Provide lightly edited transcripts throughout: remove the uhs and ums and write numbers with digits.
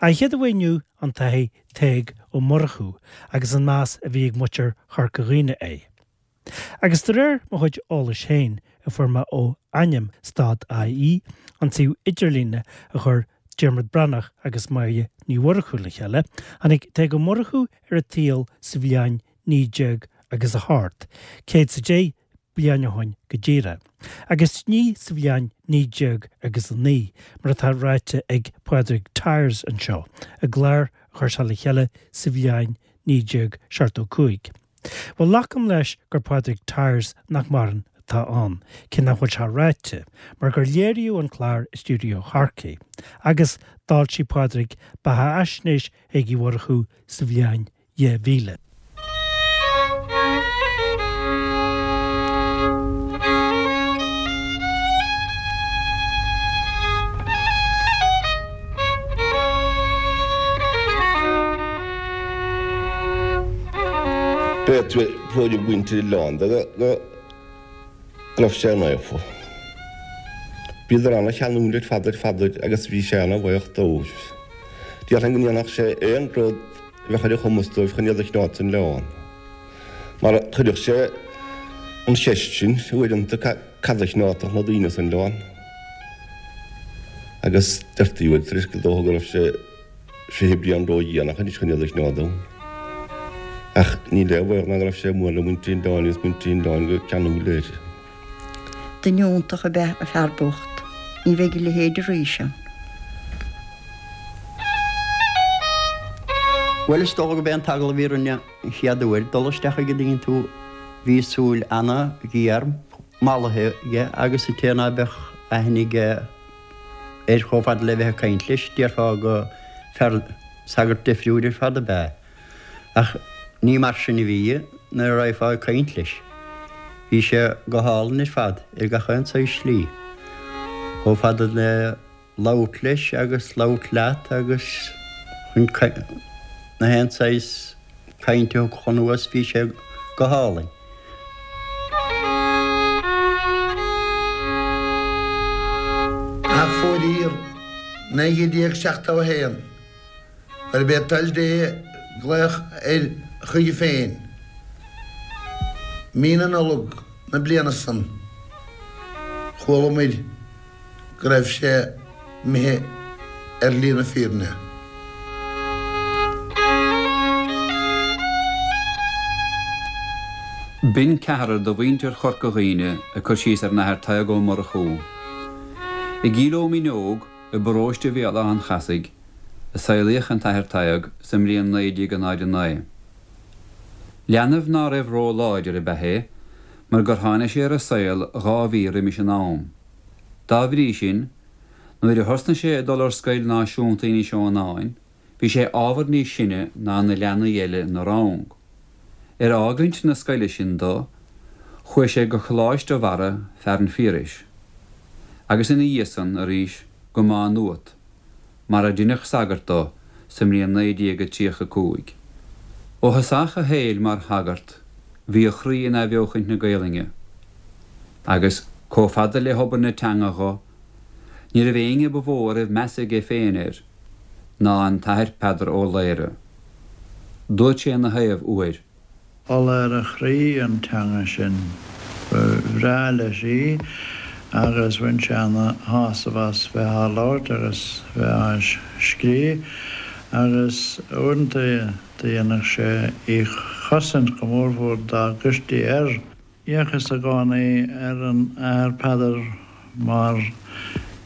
An chéad a bheidh inniu an tAthair Tadhg Ó Murchú agus an meas a bhí ag muintir Chorca Dhuibhne air. Agus de réir mo chuid eolais féin, a fuair mé ó Ainm dot IE, an suíomh idirlíne a chuir Diarmuid Breathnach agus Máire Ní Mhurchú le chéile, tháinig Tadhg Ó Murchú ar an tsaol sa bhliain 19 agus a hocht, céad 's a deich bliain ó shoin go díreach, agus ní sa bhliain 19 agus a naoi, mar atá ráite ag Pádraig Tyers anseo, i gclár a chuir sé le chéile sa bhliain 1975. Bhuel, glacaim leis gur Pádraig Tyers nach maireann atá ann, cé nach bhfuil sé ráite, mar gur léiríodh an clár i stiúideo Chorcaí, agus d'fhoilsigh Pádraig beathaisnéis Thaidhg Uí Mhurchú sa bhliain 2000. B'é tuairim mhuintir an oileáin de go raibh sé naofa. Bhíodar ana-cheanúil ar fad ar fad air agus bhí sé ana-bhaoch dóibh. Déarfainn go ndéanfadh sé aon rud a bheadh ar a chumas dóibh chun iad a choinneáil san oileán. Mar chuireadh sé an cheist sin uaireanta cad a choinneodh na daoine san oileán? Agus deirtí uaidh tar éis go dócha go raibh sé 20 bliain ródhéanach anois chun iad a choinneáil ann. Ach níl aon bhaol ná go raibh sé mór le muintir an oileáin agus muintir an oileáin go ceanúil air. Duine iontach ab ea an fear bocht. Ní bheidh a leithéid arís ann. Bhuel, is dócha gurb é an t-agallamh a bhí orainn an chéad uair dul isteach chuige an dtuigeann tú, bhí súil ana-ghéar mallaithe aige agus an té ná beadh aithne aige air chomh fada le bheith ag caint leis, déarfá go fear sagart deifriúil ar fad ab ea é. Ach ní mar sin a bhí nuair a raghfá ag caint leis. Bhí sé go hálainn ar fad ar gach aon saghas slí. Chomh fada le labhairt leis agus labhairt leat agus chun na haon saghas cainte a thiocfadh anuas bhí sé go hálainn. Ach fóiríor, 1971, gurb é toil Dé glaoch air chuige féin, mí na Nollag na bliana san, chualamair go raibh sé imithe ar shlí na fírinne. B'in ceathrar de mhuintir Chorca Dhuibhne ag cur síos ar an Athair Tadhg Ó Murchú. I gCill Ó Míneog, i bparóiste Bhéal Átha an Chasaigh, a saolaíodh an tAthair Tadhg sa mbliain 1909. Leanbh ná raibh ró-láidir ab ea é, mar gur tháinig sé ar an saol 2 mhí roimis an am. Dá bhrí sin, nuair a thosnaigh sé ag dul ar Scoil Náisiúnta Inis Eonáin, bhí sé ábhar níos sine ná na leanaí eile ina rang. Ar fhágaint na scoile sin do, chuaigh sé go Coláiste Bharra, Fearann Phiarais, agus ina dhiaidh san, arís, go Má Nuat, mar ar deineadh sagart do sa mbliain 1935. Ó thosach a shaoil mar shagart bhí a chroí in athbheochaint na Gaelainne, agus, comh fada le hobair na teanga dho, ní raibh éinne ba mhó a raibh meas aige féin air ná an tAthair Peadar Ó Laoghaire. Dúirt sé ina thaobh uair. Ola ar a chroí an teanga sin. Ba bhreá leis í agus bhain sé ana shásamh as bheith á labhairt agus bheith á scríobh agus uaireanta do dhéanadh sé í chosaint go mórmhór dá gcuirtí air. D'fhéachas i gcónaí ar an Athair Peadar mar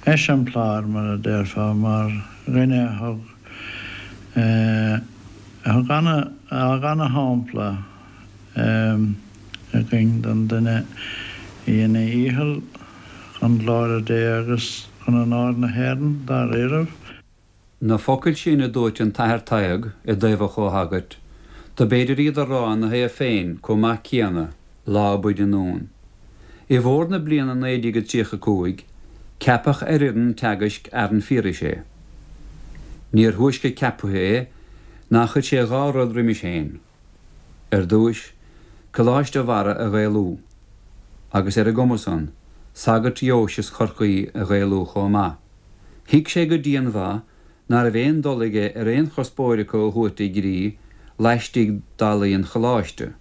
eiseamplár, mar a déarfá, mar dhuine a thug, a thug ana, a fhág ana-shampla againn don duine a dhein a dhícheall chun glóire Dé agus chun onóir na hÉireann, dáiríribh. Na focail sin a dúirt an tAthair Tadhg i dtaobh a chomhshagairt, dob fhéidir iad a rá ina thaobh féin comh maith céanna, lá ab fhaide anonn. I bhfómhar na bliana 1935, ceapadh ar fhoireann teagaisc Fhearann Phiarais é. Níor thúisce ceaptha é ná chuir sé 2 rud roimis féin. Ar dtúis, Coláiste Bharra a Ghaelú, agus ar an gcuma san, sagairt Dheoise Chorcaí a Ghaelú chomh maith. Thuig sé go dianmhaith ná raibh aon dul aige ar aon chuspóir acu a thabhairt i gcrích laistigh d'fhallaí an Choláiste,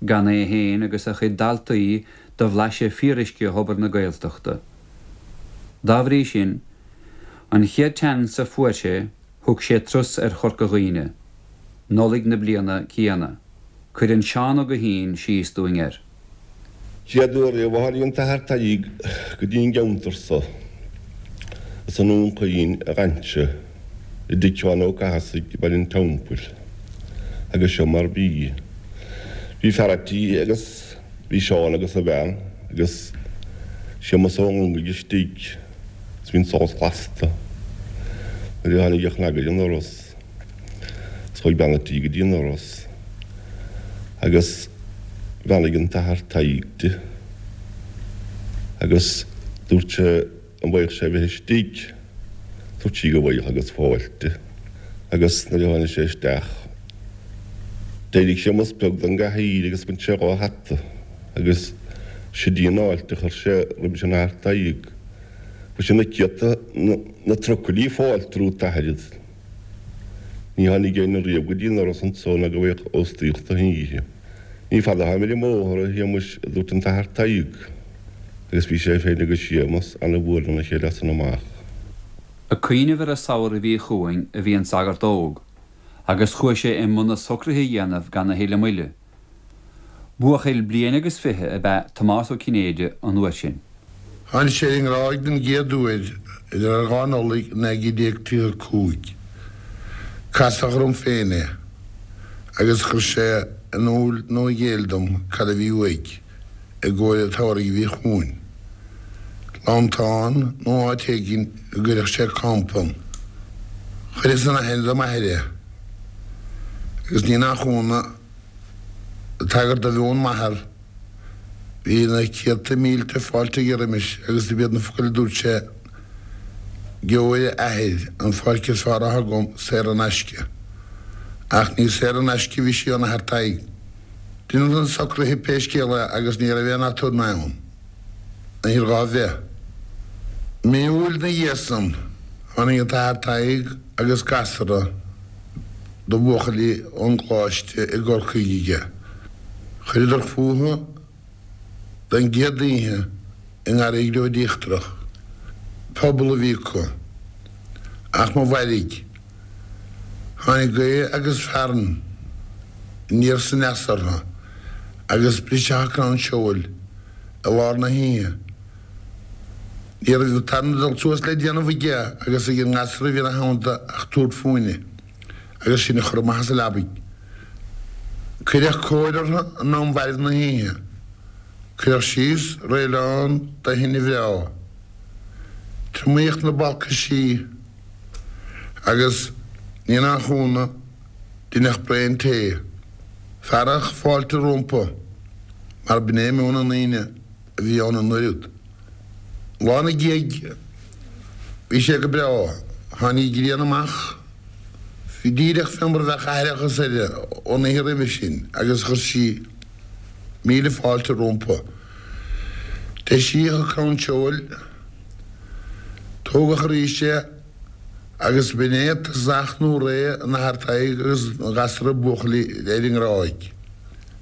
gan é féin agus a chuid daltaí do bhlaiseadh fíoruisce thobar na Gaeltachta. Dá bhrí sin, an chéad tseans a fuair sé, thug sé turas ar Chorca Dhuibhne, Nollaig na bliana céanna. Cuireann Seán Ó Guithín síos dúinn air. Chéad uair riamh a tháinig an tAthair Tadhg go dtí an gceantar so, is i nDún Chaoin a dh'fhan sé, i dtigh Sheáin Ó Cathasaigh i mBaile an Teampaill, agus seo mar bhí. Bhí fear a' tí agus bhí Seán agus a bhean agus Séamus Ó Longaigh istigh is bhí an solas lasta nuair a tháinig a chnag ar an ndoras. Is chuaigh bean a' tí go dtí an doras agus bheannaigh an tAthair Tadhg di agus dúirt sé an bhfaigheadh sé a bheith istigh. Dúirt sí go bhfaigheadh agus fáilte. Agus nuair a tháinig sé isteach d'éirigh Séamus Beag den gcathaoir agus bhain sé dhá hata agus sid í an fháilte a chuir sé roimis an Athair Tadhg. Chuir sé na céadta, na trucailí fáilte romhat a Athair. Ní tháinig éinne riamh go dtí an doras anso ná go bhfaigheadh óstaíocht don oíche. Ní fada atáim ar an mbóthar, a Shéamuis, a dúirt an tAthair Tadhg, agus bhí sé féin agus Séamus ana-mhór lena chéile as san amach. Ag cuimhneamh ar an samhradh a bhí chugainn a bhí an sagart óg, agus chuaigh sé i mbun na socruithe a dhéanamh gan a thuilleadh moille. Buachaill bliain agus 20 ab ea Tomás Ó Cinnéide an uair sin. Tháinig sé ar an nGráig den gcéad uair idir ar 2 Nollaig 1935. Casadh orm féin é agus chuir sé in iúl nó i gcéill dom cad a bhí uaidh i gcomhair an tsamhraidh a bhí chugainn. Lantán nó áit éigin a gcuirfeadh sé campa ann. Chuireas in aithne do m'athair é agus ní nach ionadh, Ag tagairt do mheon m'athar, bhí na céadta mílte fáilte aige roimis agus dob iad na focail a dúirt sé, Gheobhair a athair, an pháirc is fearr atá agam, saor in aisce. Ach ní saor in aisce a bhí sí ón Athair Tadhg. Deineadh na socruithe pé scéal é agus ní raibh aon aturnae ann. Níor ghá bheith. Mí Iúil 'na dhiaidh san, tháinig an tAthair Tadhg agus gasra de bhuachaillí ón gColáiste i gCorcaigh aige. Chuireadar fúthu don gcéad oíche i nGarraí Ghriobhaid Íochtarach. Puball a bhí acu. Ach mo mhairg, tháinig gaoth agus fearthainn aniar 's aneas orthu agus briseadh an crann seoil i lár na hoíche. Ní raibh an tarna dul suas le déanamh aige agus ag an ngasra a bhí ina theannta ach tabhairt fúinne agus sinn a chur amach as an leabaidh. Cuireadh cóir orthu in am mhairbh na hoíche. Cuireadh síos réileán de thine bhreá. Triomaíodh na balcaisí agus, ní nach ionadh, deineadh braon tae. Fearadh fáilte rompu mar b'in é meon na ndaoine a bhí ann an uair úd. Lá 'na dhiaidh bhí sé go breá. Tháinig an ghrian amach díreach fé mar a bheadh aithreachas uirthi ón oíche roimhe sin agus chuir sí míle fáilte rompu. Deisíodh an crann seoil, tógadh arís é agus b'in é tosach nó ré an Athar Tadhg agus an ghasra buachaillí ar an nGráig.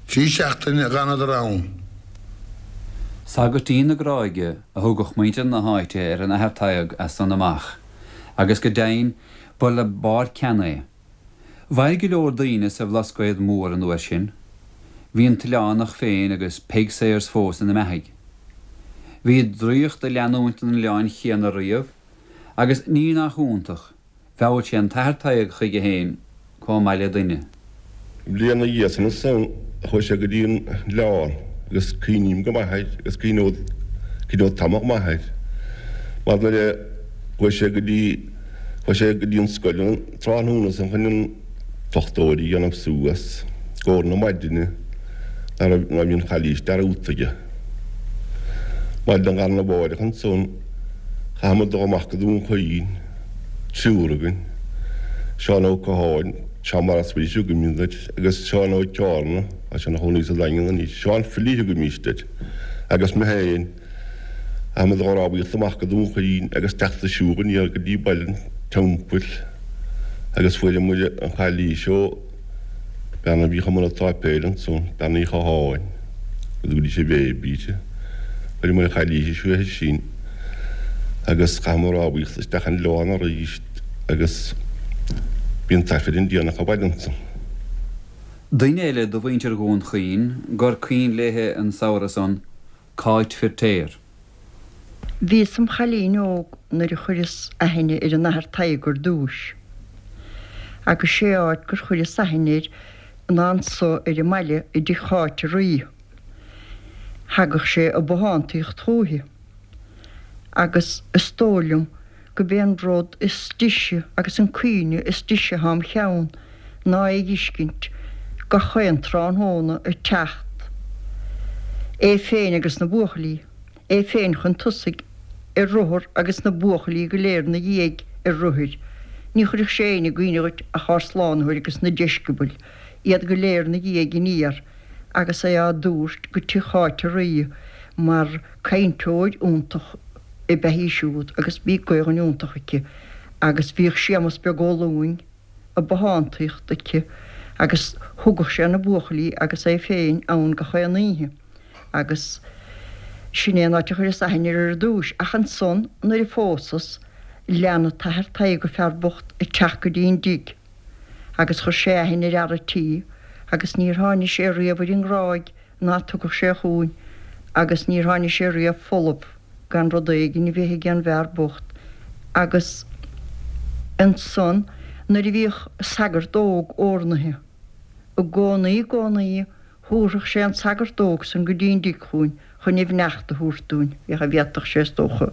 Trí seachtaine a dh'fhanadar ann. Sagairtín na Gráige a thugadh muintir na háite ar an Athair Tadhg as san amach, agus go deimhin ba le barr ceann é. Mhair go leor daoine sa Bhlascaod Mór an uair sin. Bhí an tOileánach féin agus Peig Sayers fós ina mbeathaidh. Bhí draíocht ag leanúint an oileáin chéanna riamh, agus ní nach iontach, Mheall sé an tAthair Tadhg chuige féin comh maith le duine. Bliain 'na dhiaidh san ansan chuaigh sé go dtí an oileán agus cuimhním go maith air agus cuimhneod cuimhneod tamall maith air mar nuair a chuaigh sé go dtí chuaigh sé go dtí an scoil an tráthnóna san chun an foclóir a dhéanamh suas i gcomhair na maidine ná raibh ná bhí an chailís dearúdta aige. Maidin arna mháireach ansan chaitheamar dul amach go Dún Chaoin. Triúr againn, Seán Ó Catháin, Seán Maurice Willis a thugaimid air, agus Seán Ó Ceárna, tá sé ina chónaí sa Daingean anois, Seán Philly a thugaimíst air, agus mé féin, chaitheamar dul ag rámhaíocht amach go Dún Chaoin agus teacht ag siúl aniar go dtí baile. Teampaill agus fuaireamar an chailís ó bean a bhíodh i mbun an tsáipéil ansan, Bean Uí Chatháin, go dtugaidís an Bhéibí di. Fuaireamar an chailís uaithi sin agus chaitheamar rámhaíocht isteach an oileán arís agus bhí an tAifreann déanach abhaile ansan. Duine eile de mhuintir Dhún Chaoin gur cuimhin léithe an samhradh san, Cáit Firtéar. Bhíos im chailín óg nuair a chuireas aithne ar an Athair Tadhg ar dtúis. Agus sé áit gur chuireas aithne air ná anso ar an mbaile i dtigh Cháit a' Rí. Thagadh sé ag bothántaíocht chúithi. Agus is dóigh liom go b'é an rud is deise agus an cuimhne is deise athá im cheann ná é dh'fheiscint gach aon tráthnóna ag teacht, é féin agus na buachaillí, é féin chun tosaigh ar rothar agus na buachaillí go léir 'na dhiaidh ar rothair. Ní chuirfeadh sé éinne i gcuimhne dhuit ach ár Slánaitheoir agus na deisceabail, iad go léir 'na dhiaidh aniar agus é á dtabhairt go tigh Cháit a' Rí mar cainteoir iontach ab ea í siúd agus bhí Gaelainn iontach aici agus bhíodh Séamus Beag Ó Lúing ag bothántaíocht aici agus thugadh sé na buachaillí agus é féin ann gach aon oíche agus sin é an áit a chuireas aithne air ar dtúis ach ansan nuair a phósas lean an tAthair Tadhg an fear bocht ag teacht go dtí an dtigh agus chuir sé aithne ar fhear a' tí agus níor tháinigh sé riamh ar an nGráig ná tugadh sé chugainn agus níor tháinigh sé riamh folamh gan rud éigin a bheith ag an bhfear bocht agus ansan nuair a bhíodh sagart óg órnaithe i gcónaí i gcónaí thabharfadh sé an sagart óg san go dtí an dtigh chugainn chun a bheannacht a thabhairt dúinn, féach an bhféadfadh sé is dócha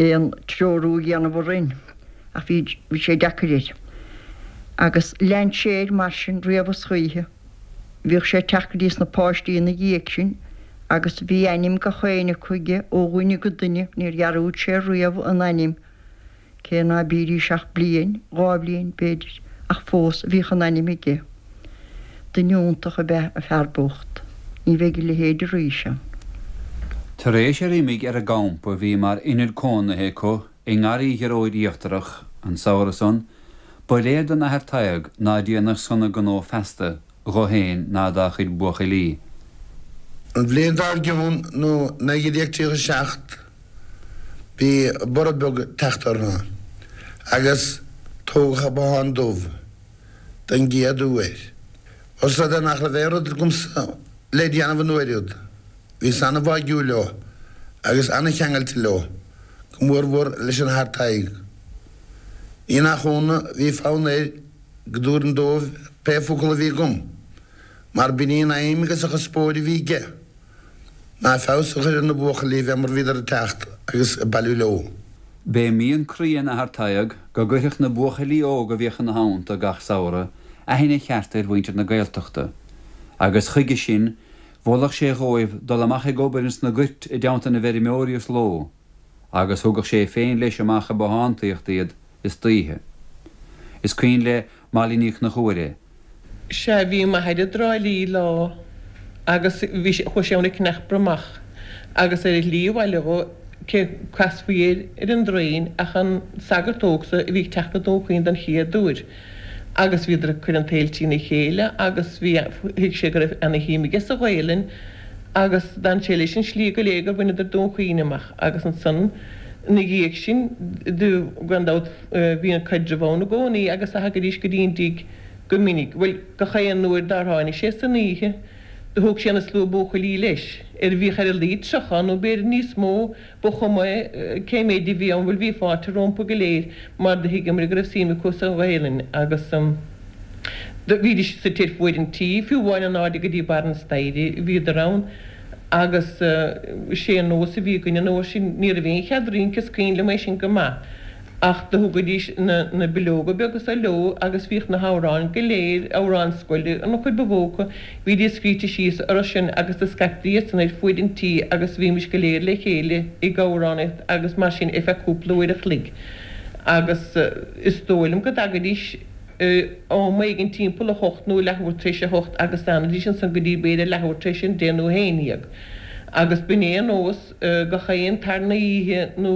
aon treorú a dhéanamh orainn ach bhí bhí sé deacair air. Agus lean sé air mar sin riamh is choíche. Bhíodh sé ag teacht go dtí sna páistí ina dhiaidh sin agus bhí ainm gach éinne acu aige ó dhuine go duine, níor dhearúd sé riamh a n-ainm, cé ná bídís ach bliain, dha bhliain, b'fhéidir, ach fós bhíodh a n-ainm aige. Duine iontach ab ea an fear bocht. Ní bheidh a leithéid arís ann. Tar éis ar imigh ar an gcampa a bhí mar ionad cónaithe acu i nGarraí Ghearóid Íochtarach an samhradh san, ba léir don Athair Tadhg ná déanadh sona gnó feasta dho fhéin ná dá chuid buachaillí. An bhliain dár gcionn, nó 1937, bhí borradh beag ag teacht orthu agus tógadh an Bothán Dubh den gcéad uair. Ós rud é nach raibh aon rud agamsa le déanamh an uair úd, Bhíos an-bháigiúil leo agus an-cheangailte leo, go mórmhór leis an Athair Tadhg. Ní nach ionadh bhí fonn air go dtabharfainn dóibh pé focal a bhí agam, mar b'in í an aidhm agus an chuspóir a bhí aige, ná feabhas a chur ar na buachaillí fé mar bhíodar ag teacht agus ag bailiú leo. B'é mian croí an Athar Tadhg go gcuirfeadh na buachaillí óga a bhíodh ina theannta gach samhradh aithne cheart ar mhuintir na Gaeltachta, agus chuige sin Mholfadh sé dhóibh dul amach ag obair ins na goirt i dteannta na bhfeirmeoirí is ló, agus thugadh sé féin leis amach ag bothántaíocht iad istoíche. Is cuimhin le Molly Ní Chonchúir é. Sea, bhí m'athair i dTrá Lí lá agus bhí sé, chuaigh sé ann ag ceannach bromach agus ar a shlí abhaile dhó, cé casfaí air ar an dtraein ach an sagart óg so a bhí ag teacht go Dún Chaoin don chéad uair. Agus bhíodar ag cur an tsaoil trína chéile agus bhí, thuig sé go raibh ana shuim aige sa Ghaelainn agus d'fhan sé leis an slí go léir gur bhaineadar Dún Chaoin amach agus ansan ina dhiaidh sin do, gan dabht, bhí an caidreamh ann i gcónaí agus do thagaidís go dtí an dtigh go minic, bhuel, gach aon uair dár tháinig sé san oíche do thug sé an slua buachaillí leis, ar bhíodh ar a laghad 30 nó b'fhéidir níos mó Ba chuma cé méid a bhí ann, bhuel bhí fáilte rompu go léir mar do thuigeamar go raibh suim acu sa Ghaelainn agus do bhídís suite ar fuaid an tí, fiú amháin in airde go dtí barr an staighre bhíodar ann agus sé an nós a bhí againn an uair sin, ní raibh aon chead rince, is cuimhin liom é sin go maith. Ach do thugaidís na bileoga beaga so leo agus bhíodh na hamhráin go léir, amhráin scoile an chuid ba mhó acu, bhídís scríte síos orthu sin agus do scaiptí iad san ar fuaid an tí agus bhímis go léir le chéile ag amhránaíocht agus mar sin ar feadh cúpla uair a chloig. Agus is dóigh liom go dtagaidís am éigin timpeall a hocht nó leathuair tar éis a hocht agus d'fhanaidís ansan go dtí b'fhéidir leathuair tar éis a deich nó a haon dhéag. Agus b'in é an nós gach aon tarna oíche nó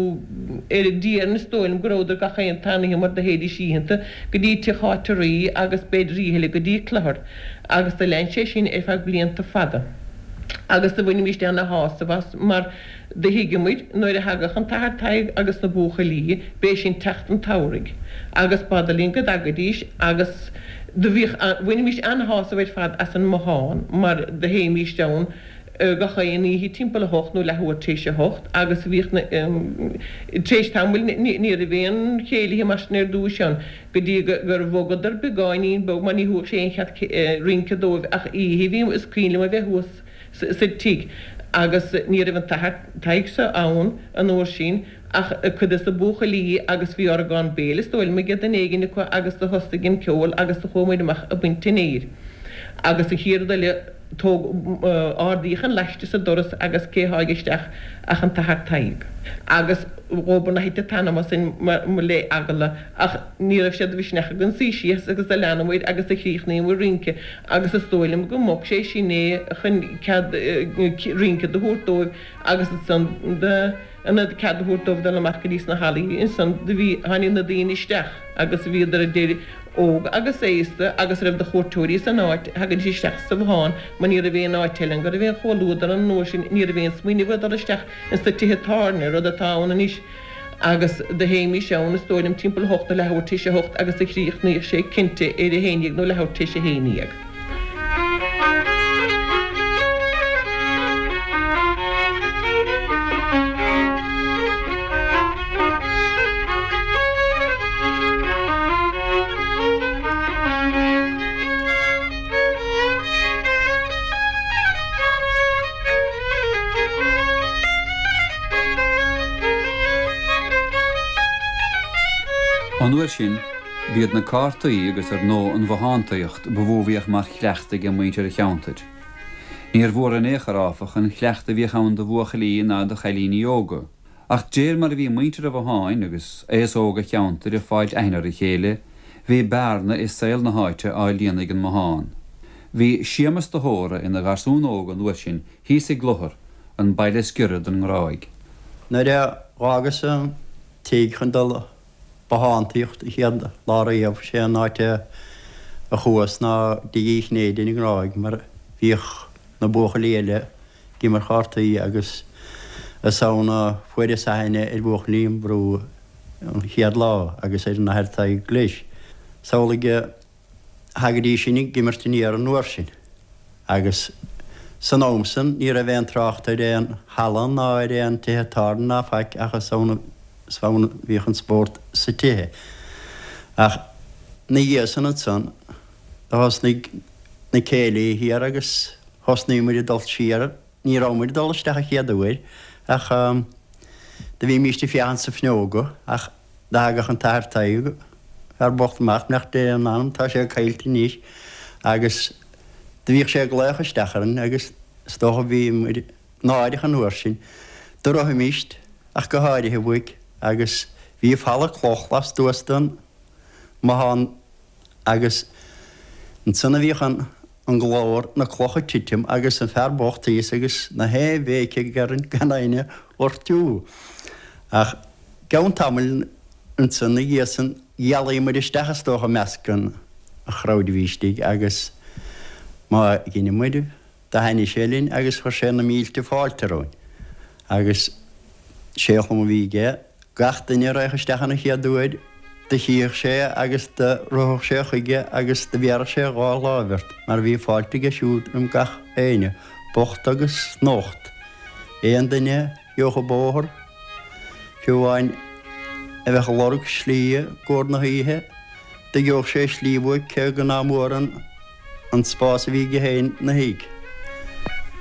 ar deireadh is dóigh liom go rabhadar gach aon tarna oíche mar do théidís oícheanta go dtí Tigh Cháit a' Rí agus b'fhéidir oíche eile go dtí Cluthar agus do lean sé sin ar feadh blianta fada. Agus do bhainimíst ana shásamh as mar do thuigeadh muid nuair a thagadh an tAthair Tadhg agus na buachaillí b'é sin teacht an tsamhraidh agus b'fhada linn go dtagaidís agus do bhíodh bhainimíst ana-shásamh ar fad as an mbothán mar do théimíst ann gach aon oíche timpeall a hocht nó leathuair tar éis a hocht agus bhíodh na tar éis tamaill ní raibh aon chéilithe mar sin ar dtúis ann go dtí gur bhogadar beagáinín beag mar ní thabharfadh sé aon chead rince dóibh ach oíche bhí is cuimhin liom a bheith thuas sa tigh agus ní raibh an tAthair Tadhg seo ann an uair sin ach cuid des na buachaillí agus bhí orgán béil is dóigh liom ag duine éigin acu agus do thosaigh an ceol agus do chuaigh muid amach ag baint an fhéir agus an chéad rud eile tóg ardaíodh an laiste sa doras agus cé tháig isteach ach an tAthair Tadhg. Agus dhóbair ná thit an t-anam asainn le eagla ach ní raibh sé de mhisneach againn suí síos agus do leanamair agus do chríochnaíomair rince agus is dóigh liom go mbog sé sin é chun cead rince do thabhairt dóibh agus ansan do ionad cead a thabhairt dóibh dul amach go dtí sna hallaí ansan do bhí tháinig na daoine isteach agus bhíodar idir óg agus aosta agus a raibh de chuairteoirí san áit thagaidís isteach sa bhothán mar ní raibh aon áit eile ann go raibh aon chomhluadar an uair sin ní raibh aon smaoineamh ar dhul isteach ins na tithe tábhairne rud atá ann anois agus do théimís ann is dóigh liom timpeall a hocht nó leathuair tar éis a hocht agus do chríochnaíodh sé cinnte ar a haon dhéag nó leathuair tar éis a haon dhéag. An uair sin, b'iad na cártaí agus ar ndóigh an bhothántaíocht ba mhó a bhíodh mar chleachtadh ag muintir an cheantair. Níor mhór in aon chor, áfach, an cleachtadh a bhíodh ann do bhuachaillí ná do chailíní óga. Ach d'réir mar a bhí muintir an bhotháin agus aos óg an cheantair ag fáilt aithne ar a chéile, bhí bearna i saol na háite á líonadh ag an mbothán. Bhí Séamus de hÓra ina gharsún óg an uair sin thíos i gClochar, an baile is giorra don nGráig. Nuair a dh'fhágas an tigh chun dul bothántaíocht an chéad lá riamh, sé an áit a chuas ná dtigh Uí Chinnéide ar an nGráig mar bhíodh na buachaillí eile ag imirt chártaí agus is ann a fuaireas aithne ar bhuachaillí an bhrú an chéad lá agus ar an Athair Tadhg leis. Samhlaigh a Thagaidís sin ag imirt aniar an uair sin agus san am san ní raibh aon trácht ar aon halla ná ar aon tithe tábhairne ná faic ach is ann is ann a bhíodh an spórt sa tithe. Ach 'na dhiaidh san ansan do thosnaigh na céilithe thiar agus thosnaigh muid ag dul siar Ní raibh muid ag dul isteach an chéad uair ach do bhímíst ag féachaint sna fuinneoga ach do thagadh an tAthair Tadhg, fear bocht amach, beannacht Dé lena anam, tá sé caillte anois, agus do bhíodh sé ag glaoch isteach orainn agus is dócha bhí muid náireach an uair sin. Do rithimíst ach go háirithe uaidh agus bhí falla cloch lastuas den mbothán Agus ansan a bhíodh an an glór, na clocha ag titim agus an fear bocht thíos agus na haon bhéic aige orainn gan éinne a ghortú. Ach gceann tamaill ansan 'na dhiaidh san dhealaigh muid isteach is dócha i measc an chrowd a bhí istigh agus má dheineadh muid Do thaitnigh sé linn agus chuir sé na mílte fáilte romhainn. Agus sé an chuma a bhí aige, gach duine a raghadh isteach an chéad uair, do chífeadh sé agus do rithfeadh sé chuige agus do bhéarfadh sé a dhá láimh ort, mar bhí fáilte aige siúd roim gach éinne, bocht agus nocht. Aon duine a gheobhadh an bóthar, fiú amháin a bheadh ag lorg slí i gcomhair na hoíche, do gheobhadh sé slí uaidh cé go ná mór an an spás a bhí aige féin 'na thigh.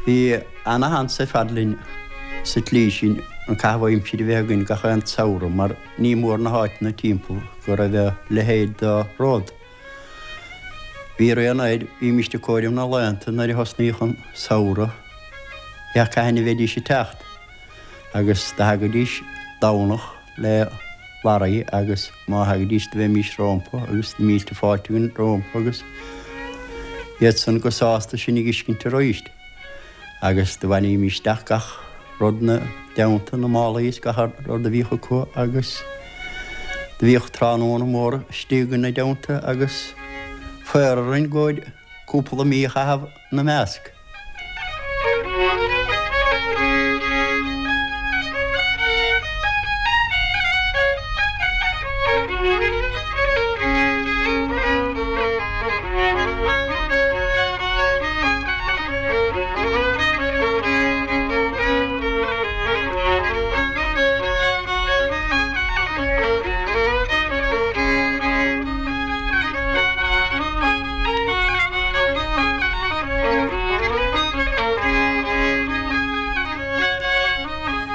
Bhí ana-sheans ar fad linn sa tslí sin an caitheamh aimsire a bheith againn gach aon tsamhradh mar ní mór na háiteanna timpeall go raibh a leithéid de rud. Bhí rian air, bhímíst ag comhaireamh na laethanta nuair a thosnaíodh an samhradh, féach cathain a bheidís ag teacht agus do thagaidís Domhnach le lorry agus má thagaidís do bheimís rómpa agus na mílte fáilte againn rómpa agus iad san go sásta sinn a dh'fheiscint aríst. Agus do bhailímis isteach gach rud 'na dteannta, na málaí is gach rud a bhíodh acu agus do bhíodh tráthnóna mór istigh ina dteannta agus faobhar orainn go cúpla mí a chaitheamh 'na measc.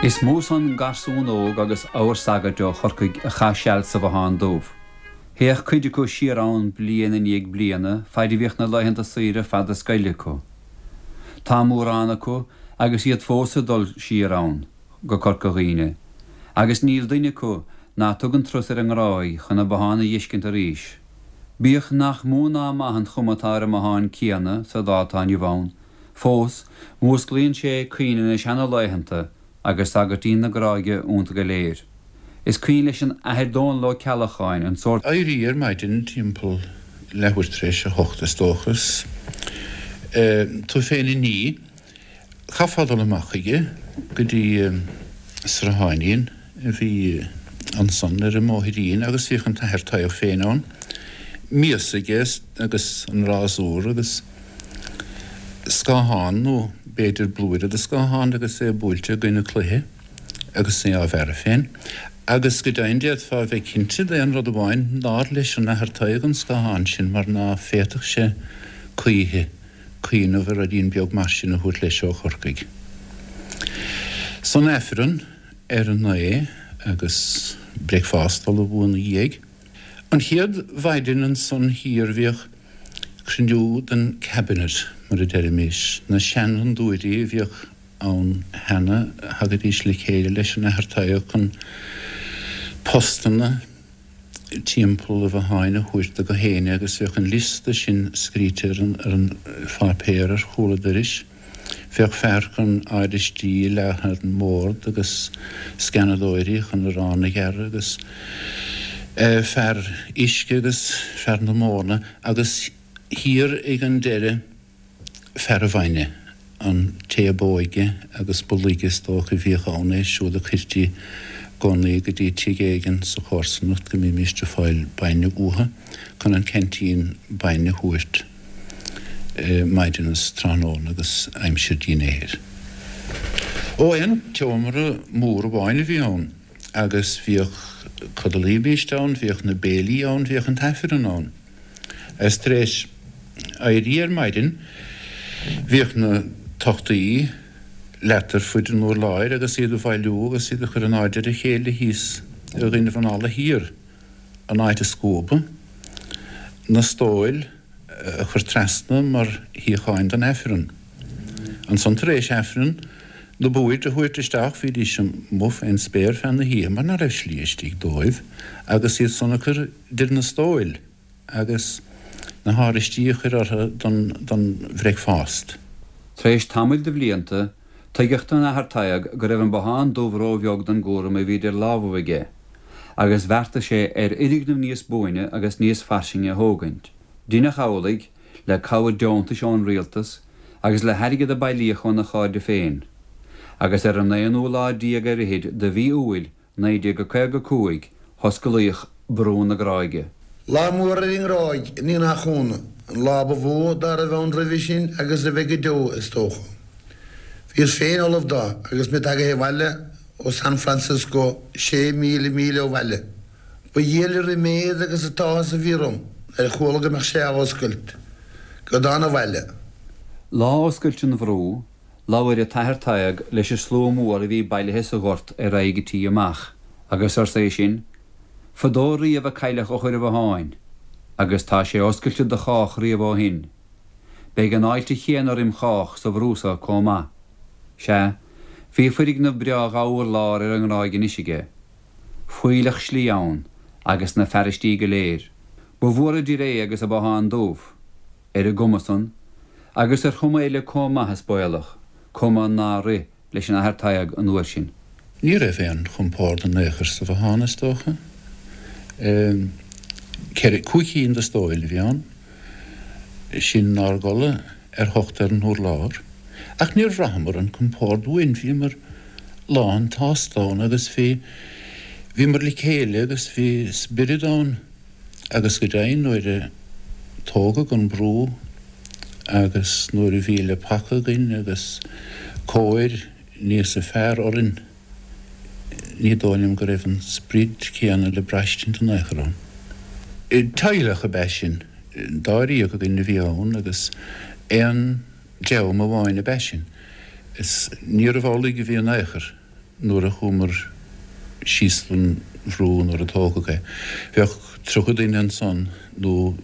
Is mó san garsún óg agus abhar sagairt ó Chorcaigh a chaith seal sa Bhothán Dubh. Théadh cuid acu siar ann bliain i ndiaidh bliana faid a bhíodh na laethanta saoire fada scoile acu. Tá mórán acu agus iad fós ag dul siar ann go Corca Dhuibhne, agus níl duine acu ná tugann turas ar an nGráig chun an bothán a dh'fheiscint arís. Bíodh nach mó ná maith an chuma atá ar an mbothán céanna sa lá atá inniu ann, fós músclaíonn sé cuimhne na seana-laethanta agus sagairtín na Gráige iontu go léir. Is cuimhin leis an Athair Dónall Ó Ceallacháin an sórt. Éirí ar maidin timpeall leathuair tar éis a hocht is dócha is tú féin a ní. Chaithfeá dul amach chuige go dtí srutháinín a bhí ansan ar an mbóithrín agus bhíodh an tAthair Tadhg féin ann, mias aige agus an rásúr agus scáthán nó b'fhéidir blúire de scáthán agus é buailte i gcoinne cloiche agus é á bhearradh féin. Agus go deimhin d'fhéadfá a bheith cinnte d'aon rud amháin, nár leis an Athair Tadhg an scáthán sin mar ná féadfadh sé choíche cuimhneamh ar ruidín beag mar sin a thabhairt leis ó Chorcaigh. San Aifreann ar a naoi agus bricfeasta ullamh ina dhiaidh. An chéad mhaidin ansan thiar bhíodh cruinniú den Cabinet, mar a deirimis, na seanfhondúirí a bhíodh ann cheana, thagaidís le chéile leis an Athair Tadhg chun postanna timpeall an bhotháin a thabhairt do gach éinne agus bheadh an liosta sin scríte ar an pháipéar ar chúl an doiris. Bheadh fear chun áiristí a leagan ar an mbord agus sceanadóirí chun arán a ghearradh agus fear uisce agus fear na móna agus thiar ag an deireadh fear an bhainne, an té ab óige agus ba laige is dócha a bhíodh ann, é siúd a cuirtí i gcónaí go dtí tigh éigin sa chomharsanacht go mbímíst ag fáil bainne uathu chun an ceaintín bainne a thabhairt maidin is tráthnóna agus aimsir dinnéir. Ó, aon tseomra mór amháin a bhí ann agus bhíodh, codlaímíst ann, bhíodh na béilí ann, bhíodh an t-aifreann ann. Is tar éis éirí ar maidin bhíodh na tochtaí leata ar fuid an urláir agus iad a bhailiú agus iad a chur in airde ar a chéile thíos i gcoinnibh an fhalla thiar, an áit a scuabadh, na stóil a chur trasna mar shuíocháin don Aifreann. Ansan tar éis Aifreann, na boird a thabhairt isteach, bhídís amuigh fén spéir feadh na hoíche mar ná raibh slí istigh dóibh agus iad san a chur idir na stóil agus na háiristí a chur orthu don bhreicfeást. Tar éis tamaill de bhlianta, tuigeadh don Athair Tadhg go raibh an Bothán Dubh ró-bheag don gcúram a bhí idir lámhaibh aige, agus bheartaigh sé ar fhoirgneamh níos buaine agus níos fairsinge a thógaint. Deineadh amhlaidh, le cabhair deontais ón rialtas agus le hairgead a bailíodh óna chairde féin. Agus ar an aonú lá déag ar fhichid de mhí Iúil 1955 hosclaíodh Brú na Gráige. Lá mór ar an nGráig, ní nach ionadh, an lá ba mhó dá raibh ann roimhe sin agus a bheidh go deo, is dócha. Bhíos féin ullamh dó agus mé tagaithe abhaile ó San Francisco, 6,000 míle ó bhaile. Ba dhiail an ríméad agus an t-áthas a bhí orm nuair a chuala go mbeadh sé á oscailt, go dtána abhaile. Lá oscailte an bhrú, Labhair an tAthair Tadhg leis an slua mór a bhí bailithe sa ghort ar aghaidh an tí amach, agus arsa é sin, Fadó riamh a cailleadh eochair an bhotháin, agus tá sé oscailte do chách riamh ó shin. Beidh an fháilte chéanna roim chách sa bhrú so comh maith. Sea, bhí foirgneamh breá dhá urlár ar an nGráig anois aige. Fuílleach slí ann, agus na fearaistí go léir. Ba mhór idir é agus an Bothán Dubh. Ar an gcuma san, agus ar chuma eile comh maith is baolach. Cuma nár rith leis an Athair Tadhg an uair sin. Ní raibh aon chompord in aon chor sa bhothán, is dócha. Ceithre, cúig cinn de stóil a bhí ann. Sinn 'nár gcodladh ar thocht ar an urlár. Ach níor bhraitheamar an compord uainn, bhíomar lán tsásta ann agus bhí, bhíomar le chéile agus bhí spiorad ann agus go deimhin nuair a tógadh an brú agus nuair a bhí le paca againn agus cóir níosa fearr orainn ní dóigh liom go raibh an sprid céanna le braistint in aon chor ann. Teaghlach ab ea sinn, dáréag againn a bhí ann agus aon dream amháin ab ea sinn. Is níorbh amhlaidh a bhí in aon chor nuair a chuamar síos don bhrú nuair a tógadh é. Bheadh 30 duine ansan nó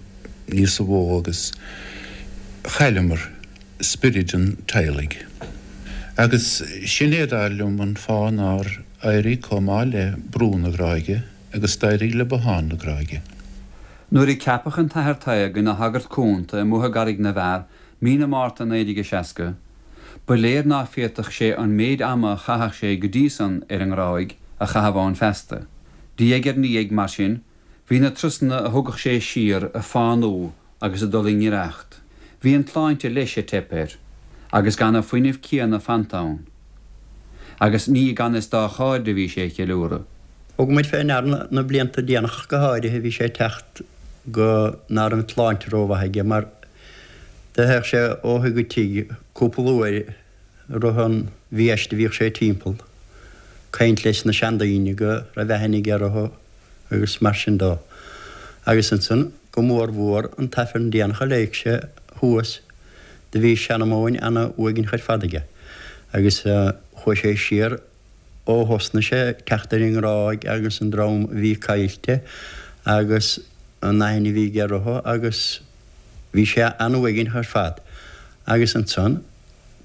níosa mhó agus chailleamar spioraid an teaghlaigh. Agus sin é dar liom an fáth nár éirigh chomh maith le Brú na Gráige agus d'éirigh le Bothán na Gráige. Nuair a ceapadh an tAthair Tadhg ina shagart cúnta i mBóthar gCarraig na bhFear mí na Márta 1960, ba léir ná féadfadh sé an méid ama a chaitheadh sé go dtí san ar an nGráig a chaitheamh ann feasta. Diaidh ar ndiaidh, mar sin, bhí na turasanna a thugadh sé siar ag fánú agus ag dul i ngiorracht. Bhí an tsláinte leis ag teip air, agus gan an fuinneamh céanna fanta ann. Agus ní i gan fhios dá chairde a bhí sé ag ceiliúradh. Thug muid fé ndear na blianta déanacha ach go háirithe bhí sé ag teacht go ná raibh an tsláinte rómhaith aige mar do théadh sé ó thigh go tigh cúpla uair i rith an mhí aiste bhíodh sé timpeall caint leis na seandaoine go raibh aithne aige orthu agus mar sin dó. Agus ansan, go mór mhór, an t-Aifreann déanach a léigh sé thuas, do bhí seanmóin ana uaigneach ar fad aige, agus chuaigh sé siar ó thosnaigh sé ag teacht ar an nGráig agus an dream a bhí caillte agus an aithne a bhí aige orthu agus bhí sé ana-uaigneach ar fad. Agus ansan,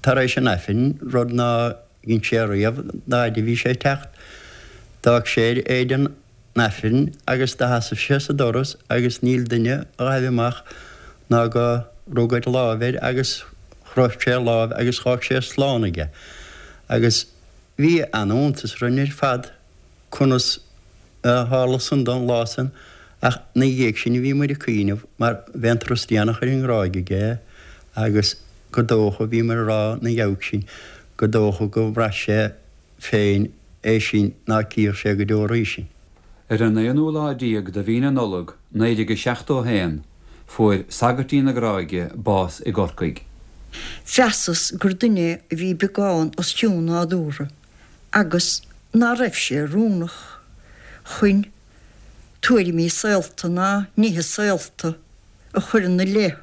tar éis an Aifrinn, rud ná dhein sé riamh d'fhaid a bhí sé ag teacht. D'fhág sé air éide an Aifrinn agus do sheasaimh sé sa doras agus níl duine a ghaibh amach ná go rug ar láimh air agus chroith sé a láimh agus dh'fhág sé slán aige. Agus bhí ana-iontas orainn ar fad conas a tharla san dó an lá san ach 'na dhiaidh sin bhí muid ag cuimhneamh mar b'é an turas déanach ar an nGráig aige agus gur dócha, bhí muid a rá 'na dhiaidh sin, gur dócha go bhraith sé féin é sin ná cífeadh sé go deo arís sinn. Ar an aonú lá déag de mhí na Nollag 1971 fuair Sagairtín na Gráige bás i gCorcaigh. Mheasas gur duine a bhí beagán os cionn nádúrtha agus ná raibh sé oiriúnach chun tuairimí saolta ná nithe saolta a chur ina leith.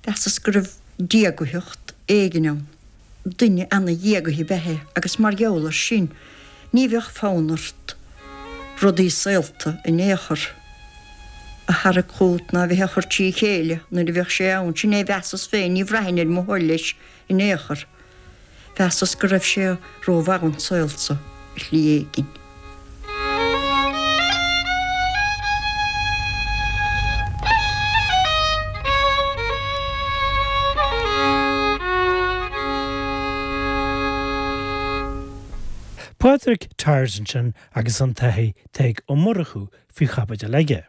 Mheasas go raibh diagaitheacht éigin ann. Duine ana-dhiagaithe ab ea é agus mar gheall air sin ní bheadh fonn ort rudaí saolta in aon chor a tharrac chút ná a bheith á chur trí chéile nuair a bheadh sé ann. Sin é a mheasas féin, ní bhraithfinn ar mo thoil leis in aon chor. Mheasas go raibh sé rómhaith don saol so ar shlí éigin. Pádraig Tyers ansin agus an tAthair Tadhg Ó Murchú faoi chaibidil aige.